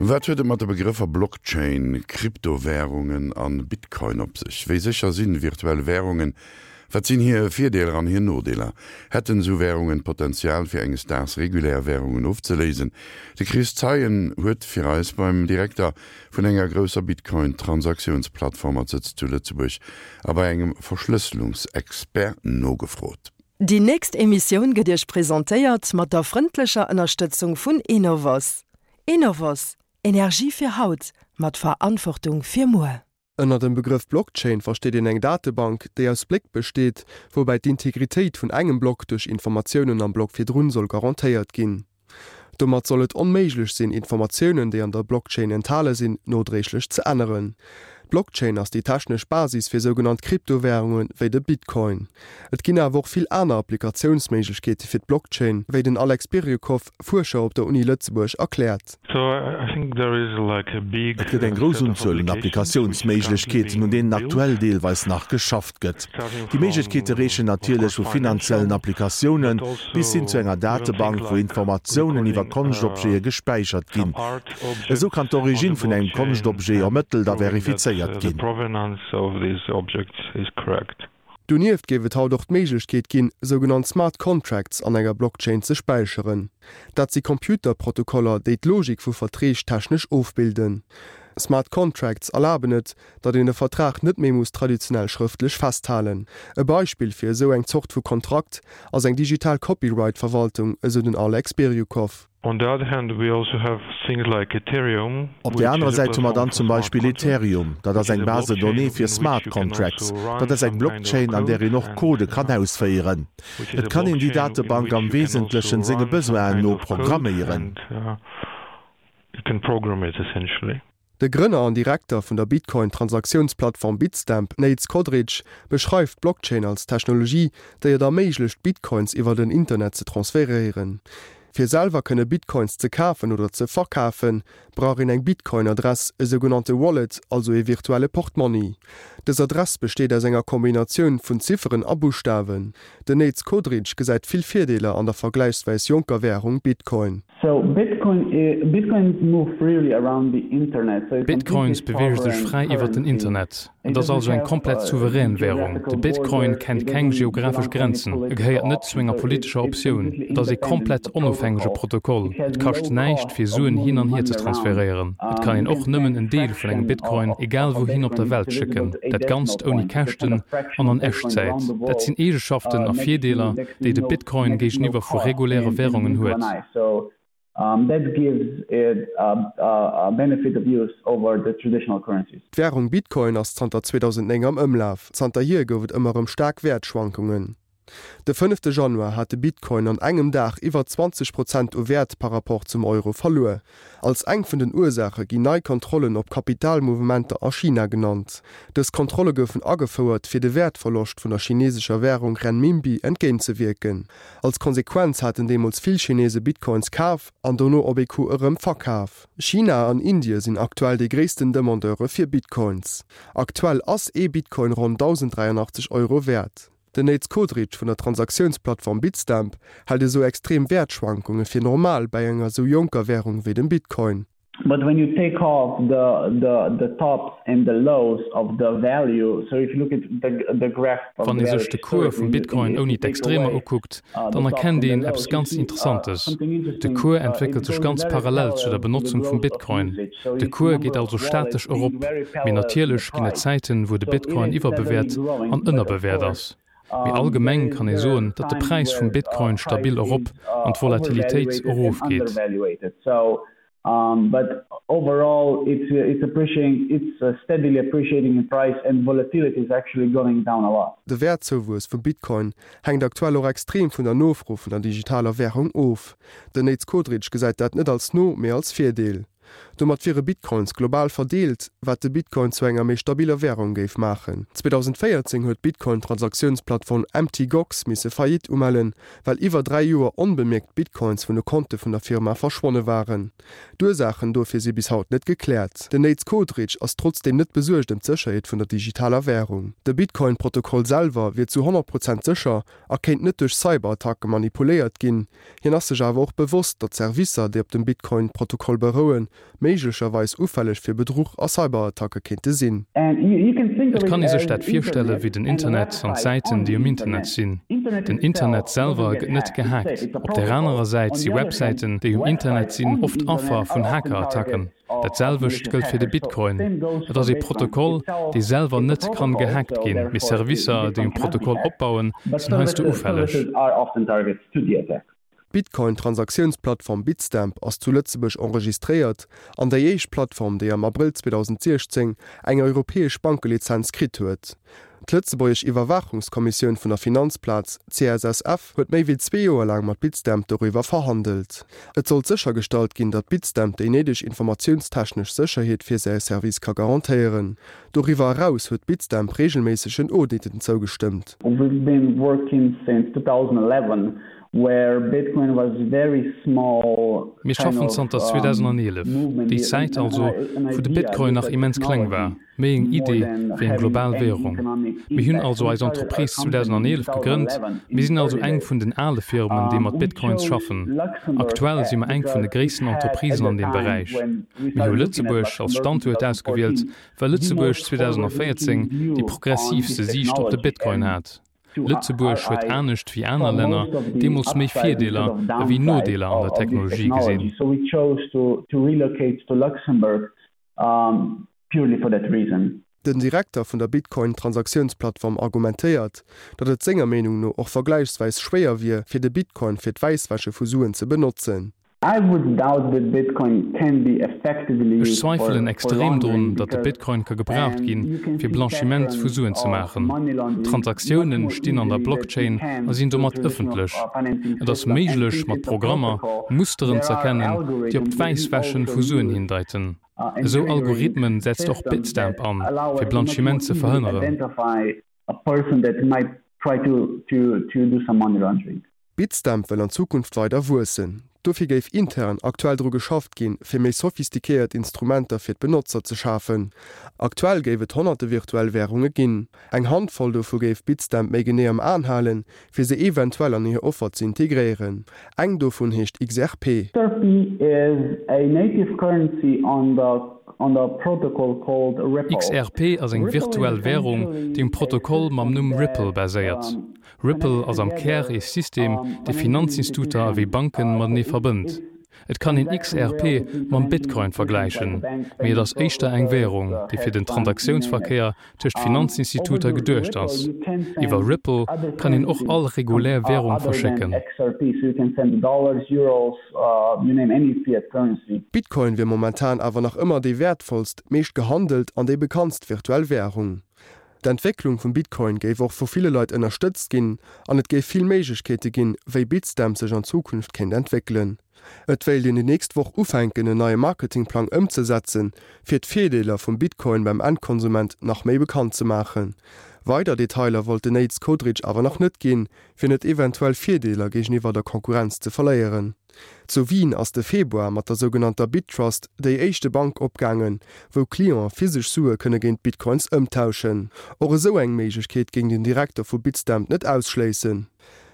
Wat huet et mat de Begrëffer Blockchain, Kryptowärungen an Bitcoin op sech? Wéi sécher sinn virtuell Wärungen? Wat sinn hir Virdeeler an hir Nodeeler? Hätten esou Wärungen d'Potenzial fir enges Daags regulär Wärungen ofzeléisen? De Chris Zeien huet fir eis beim Direkter vun enger grousser Bitcoin-Transaktiounsplattform mat Sëtz zu Lëtzebuerg a bei engem Verschlësselungsexpert nogefrot. Déi nächst Emissioun gëtt Iech presentéiert mat der frëndlecher Ënnerstëtzung vun Enovos. Enovos, Energie fir haut, mat Verantwortung fir muer. Ënner dem Begrëff Blockchain versteet een eng Datebank, déi aus Bléck besteet, woubäi d'Integritéit vun engem Block duerch Informatiounen am Block virdrun soll garantéiert ginn. Domat soll et onméiglech sinn, Informatiounen, déi an der Blockchain enthale sinn, nodréiglech ze änneren. D'Blockchain ass déi technesch Basis fir sougenannt Kryptowärunge wéi de Bitcoin. Et ginn awer och vill aner Applikatiounsméiglechkeete fir d'Blockchain, wéi den Alex Biryukov, Fuerscher op der Uni Lëtzebuerg, erkläert. Et gëtt eng grouss Unzuel un Applikatiounsméiglechkeeten, un deenen aktuell deelweis nach geschafft gëtt. Déi Méiglechkeete reechen natierlech vu finanziellen Applikatioune bis hin zu enger Datebank, wou Informatiounen iwwer Konschtobjete gespäichert ginn. Esou kann d'Origine vun engem Konschtobjet ermëttelt a verifizéiert ginn. Donieft géif et haut och d'Méiglechkeet ginn, sougenannt Smart Contracts an enger Blockchain ze späicheren. Dat si Computerprotokoller, déi d'Logik vu Verträg technesch ofbilden. Smart Contracts erlaben et, datt een e Vertrag net méi muss traditionell schrëftlech festhalen. E Beispill fir esou eng Zort vu Kontrakt ass eng digital Copyright-Verwaltung, esou den Alex Biryukov. Op där anerer Säit hu mer dann zum Beispill Ethereum, dat ass eng Base de données fir Smart Contracts. Dat ass eng Blockchain, an där een och Codë kann ausféieren. Et kann een déi Datebank am Wesentlechen senge Besoinen no programméieren. De Grënner an Direkter vun der Bitcoin-Transaktiounsplattform Bitstamp, Nejc Kodric, beschreift d'Blockchain als Technologie, déi et erméiglecht, Bitcoins iwwer den Internet ze transferéieren. Fir selwer kënne Bitcoins ze kafen oder ze verkafen, brauch een eng Bitcoin-Adress, e sougenannte Wallet, also ee virtuelle Portmonni. Dës Adress besteet aus enger Kombinatioun vun Zifferen a Buschtawen. Den Nejc Kodric gesäit vill Virdeeler an der vergläichswäis jonker Wärung Bitcoin. Bitcoins beweege sech fräi iwwer den Internet. Et ass also eng komplett souverän Wärung. De Bitcoin kennt keng geographesch Grenzen, e gehéiert net zu enger politescher Optioun. Et ass ee komplett onofhängege Protokoll. Et kascht näischt, fir Suen hin an hier ze transferéieren. Et kann een och nëmmen en Deel vun engem Bitcoin egal wouhin op der Welt schécken, dat Ganzt ouni Käschten an an Echtzäit. Dat sinn Eegeschaften a Virdeeler, déi de Bitcoin géigeniwwer vu reguläre Wärungen huet. D'Wärung Bitcoin ass zanter 2009 am Ëmlaf. Zanterhier gouf et ëmmer erëm staark Wäertschwankungen. De fënnefte Januar hat de Bitcoin an engem Dag iwwer 20 Prozent u Wäert par Rapport zum Euro verluer. Als eng vun den Ursaache ginn nei Kontrollen op Kapitalmouvementer a China genannt. Dës Kontrolle goufen agefouert, fir de Wäertverloscht vun der chinesescher Wärung Renminbi entgéintzewierken. Als Konsequenz haten deemools vill Chinese Bitcoins kaf an dono op ee Coup erëm verkaf. China an Indie sinn aktuell déi gréissten Demandeure fir Bitcoins. Aktuell ass ee Bitcoin ronn 1.083 Euro wäert. Den Nejc Kodric vun der Transaktiounsplattform Bitstamp hält esou extrem Wäertschwankunge fir normal bäi enger esou jonker Wärung wéi dem Bitcoin. But when you take off the the the tops and the lows of the value, so if you look at the the graph of Wann the ee value sech de Cours vum historically, Bitcoin if ouni you take d'Extremer away ukuckt, dann the tops erkennt and the een eppes lows, you ganz see Interessantes, something De interesting, Cours it entwéckelt sech goes ganz very parallel zu der parallel to the Benotzung vum growth of Bitcoin. usage, so De you see Cours number geet of also wallets statesch being erop, very mee parallel to the natierlech ginn et price. Zäiten, wou de So it Bitcoin is steadily iwwerbewäert growing, an but of ënnerbewäert course ass. Mee allgemeng kann ee soen, datt de Präis vum Bitcoin stabil erop an d'Volatilitéit erofgeet. De Wäertzouwuess vum Bitcoin hänkt aktuell och extrem vun der Nofro vun der digitaler Wärung of. Den Nejc Kodric gesäit dat net als No-, mee als Virdeel. Domat wiere Bitcoins global verdeelt, wat de Bitcoin zu enger méi stabiller Wärung géif maachen. 2014 huet d'Bitcoin-Transaktiounsplattform Mt. Gox misse Faillite umellen, well iwwer 3 Joer onbemierkt Bitcoins vun de Konte vun der Firma verschwonne waren. D'Ursaachen dofir si bis haut net gekläert. Den Nejc Kodric ass trotzdeem net besuergt ëm d'Sécherheet vun der digitaler Wärung. De Bitcoin-Protokoll selwer wier zu 100 Prozent sécher a kéint net duerch Cyberattacke manipuléiert ginn. Hien ass sech awer och bewosst, datt Servicer, déi op dem Bitcoin-Protokoll berouen, méi. méiglecherweis ufälleg fir Bedruch a Cyberattacke kéinte sinn. Et kann ee sech dat virstelle wéi den Internet an d'Säiten, déi um Internet sinn. Den Internet selwer gëtt net gehackt. Op där anerer Säit si Websäiten, déi um Internet sinn, oft Affer vun Hackerattacken. Dat selwecht gëllt fir de Bitcoin. Et ass ee Protokoll, dee selwer net kann gehackt ginn, mee Servicer, déi um Protokoll opbauen, sinn heiansdo ufälleg. D'Bitcoin-Transaktiounsplattform Bitstamp ass zu Lëtzebuerg enregistréiert an déi éischt Plattform, déi am Abrëll 2016 eng europäesch Bankelizenz kritt huet. D'lëtzebuergesch Iwwerwaachungskommissioun vun der Finanzplaz, CSSF, huet méi wéi zwee Joer laang mat Bitstamp doriwwer verhandelt. Et sollt séchergestallt ginn, datt Bitstamp déi néideg informatiounstechnesch Sécherheet fir säi Service ka garantéieren. Doriwwer eraus huet Bitstamp reegelméissegen Auditen zougestëmmt. We've been working since 2011 where Bitcoin was very small Mir schaffen zanter 2011, déi Zäit also, wou de Bitcoin nach immens kleng war, méi eng Idee wéi eng global Währung. Mir hunn also eis Entreprise 2011 gegrënnt, mir sinn also eng vun den ale Firmen, déi mat Bitcoins schaffen. Aktuell si mer eng vun de gréissten Entreprisen an deem Beräich. Mir hu Lëtzebuerg als Standuert ausgewielt, well Lëtzebuerg 2014 déi progressiivste Siicht op de Bitcoin hat. Lëtzebuerg huet anescht wéi aner Länner deemools méi Virdeeler ewéi Nodeeler an der Technologie gesinn. Den Direkter vun der Bitcoin-Transaktiounsplattform argumentéiert, datt et senger Meenung no och vergläichsweis schwéier wier, fir de Bitcoin fir d'Wäisswäsche vu Suen ze benotzen. Ech zweifelen extrem drun, datt de Bitcoin ka gebraucht ginn, fir Blanchiment vu Suen ze maachen. D'Transaktiounen stinn an der Blockchain a sinn domat ëffentlech. Et ass méiglech, mat Programmer Musteren z'erkennen, déi op d'Wäisswäschen vu Suen hindeiten. Esou Algorithmen setzt och Bitstamp an, fir Blanchiment ze verhënneren. Bitstamp wëll an Zukunft weider wuessen. Dofir géif intern aktuell dru geschafft ginn, fir méi sophistiquéiert Instrumenter fir d'Benotzer ze schafen. Aktuell géif et honnerte virtuell Wärunge ginn. Eng Handvoll dovu géif Bitstamp méi genee am Aen halen, fir se eventuell an hir Offer ze integréieren. Eng dovun heescht XRP. XRP is a native currency on the on the protocol called Ripple. XRP ass eng virtuell Wärung, déi um Protokoll mam Numm Ripple baséiert. Ripple ass am Kär ee System, dee Finanzinstuter ewéi Banken matenee verbënnt. Et kann een XRP mam Bitcoin vergläichen, mee et ass éischter eng Währung, déi fir den Transaktiounsverkéier tëscht Finanzinstituter geduecht ass. Iwwer Ripple kann een och all regulär Währung verschécken. Bitcoin wier momentan awer nach ëmmer déi wäertvollst, meescht gehandelt an déi bekanntst virtuell Währung. D'Entwécklung vum Bitcoin géif och vu ville Leit ënnerstëtzt ginn an et géif vill Méiglechkeete ginn, wéi Bitstamp sech an Zukunft kéint entwéckelen. Et wéilt een déi nächst Woch ufänken en neie Marketingplang ëmzesetzen, fir d'Virdeeler vum Bitcoin beim Endkonsument nach méi bekannt ze maachen. Weider Detailer wollt den Nejc Kodric awer nach net ginn, fir net eventuell Virdeeler géigeniwwer der Konkurrenz ze verléieren. Zu Wien ass de Februar mat der sougenannter BitTrust déi éischte Bank opgaangen, wou Cliente physesch Sue kënne géint Bitcoins ëmtauschen. Och esou eng Méiglechkeet géing den Direkter vu Bitstamp net ausschléissen.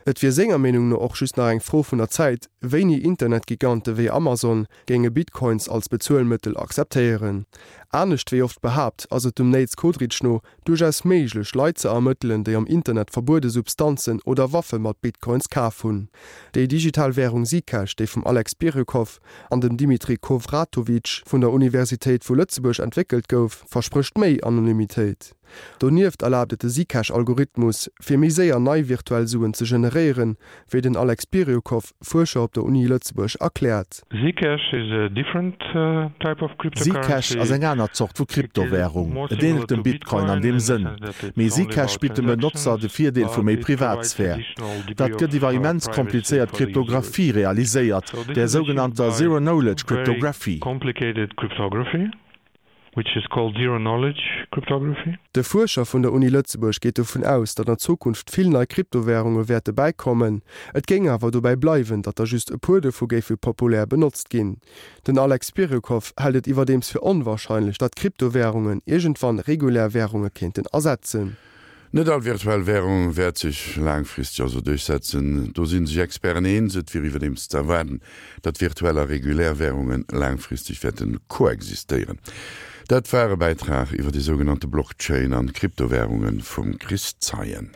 Et wier senger Meenung no och just nach eng Fro vun der Zäit, wéini Internetgigante wéi Amazon géinge Bitcoins als Bezuelmëttel akzeptéieren. Anescht wéi oft behaapt, ass et dem Nejc Kodric no duerchaus méiglech, Leit ze ermëttelen, déi am Internet verbuede Substanzen oder Waffe mat Bitcoins kaf hunn. Déi digital Wärung Zcash, déi vum Alex Biryukov an dem Dimitri Khovratovich vun der Universitéit vu Lëtzebuerg entwéckelt gouf, versprécht méi Anonymitéit. Donieft erlaabt et de Zcash-Algorithmus, fir méi séier nei virtuell Suen ze generéieren, wéi den Alex Biryukov, Fuerscher op der Uni Lëtzebuerg, erkläert. Zcash is a different type of Zcash ass eng aner Zort vu Kryptowärung. Et änelt dem Bitcoin an deem Sënn, mee Zcash bitt dem Benotzer de Virdeel vu méi Privatsphär. Dat gëtt iwwer immens komplizéiert Kryptographie realiséiert, där sougenannter Zero-Knowledge Cryptography. Which is called zero-knowledge cryptography. De Fuerscher vun der Uni Lëtzebuerg geet dovun aus, datt an Zukunft vill nei Kryptowärunge wäerte bäikommen. Et géing awer dobäi bleiwen, datt der just e puer dovu géife populär benotzt ginn. Den Alex Biryukov hält et iwwerdeems fir onwarscheinlech, datt Kryptowärungen iergendwann regulär Wärunge kéinten ersetzen. Net all virtuell Wärung wäert sech laangfristeg also duerchsetzen. Do si sech Experten eens. Et wier iwwerdeems ze erwaarden, datt virtuell a regulär Wärunge laangfristeg wäerte koexistéieren. Dat war e Bäitrag iwwer déi sougenannte Blockchain an d'Kryptowärunge vum Chris Zeien.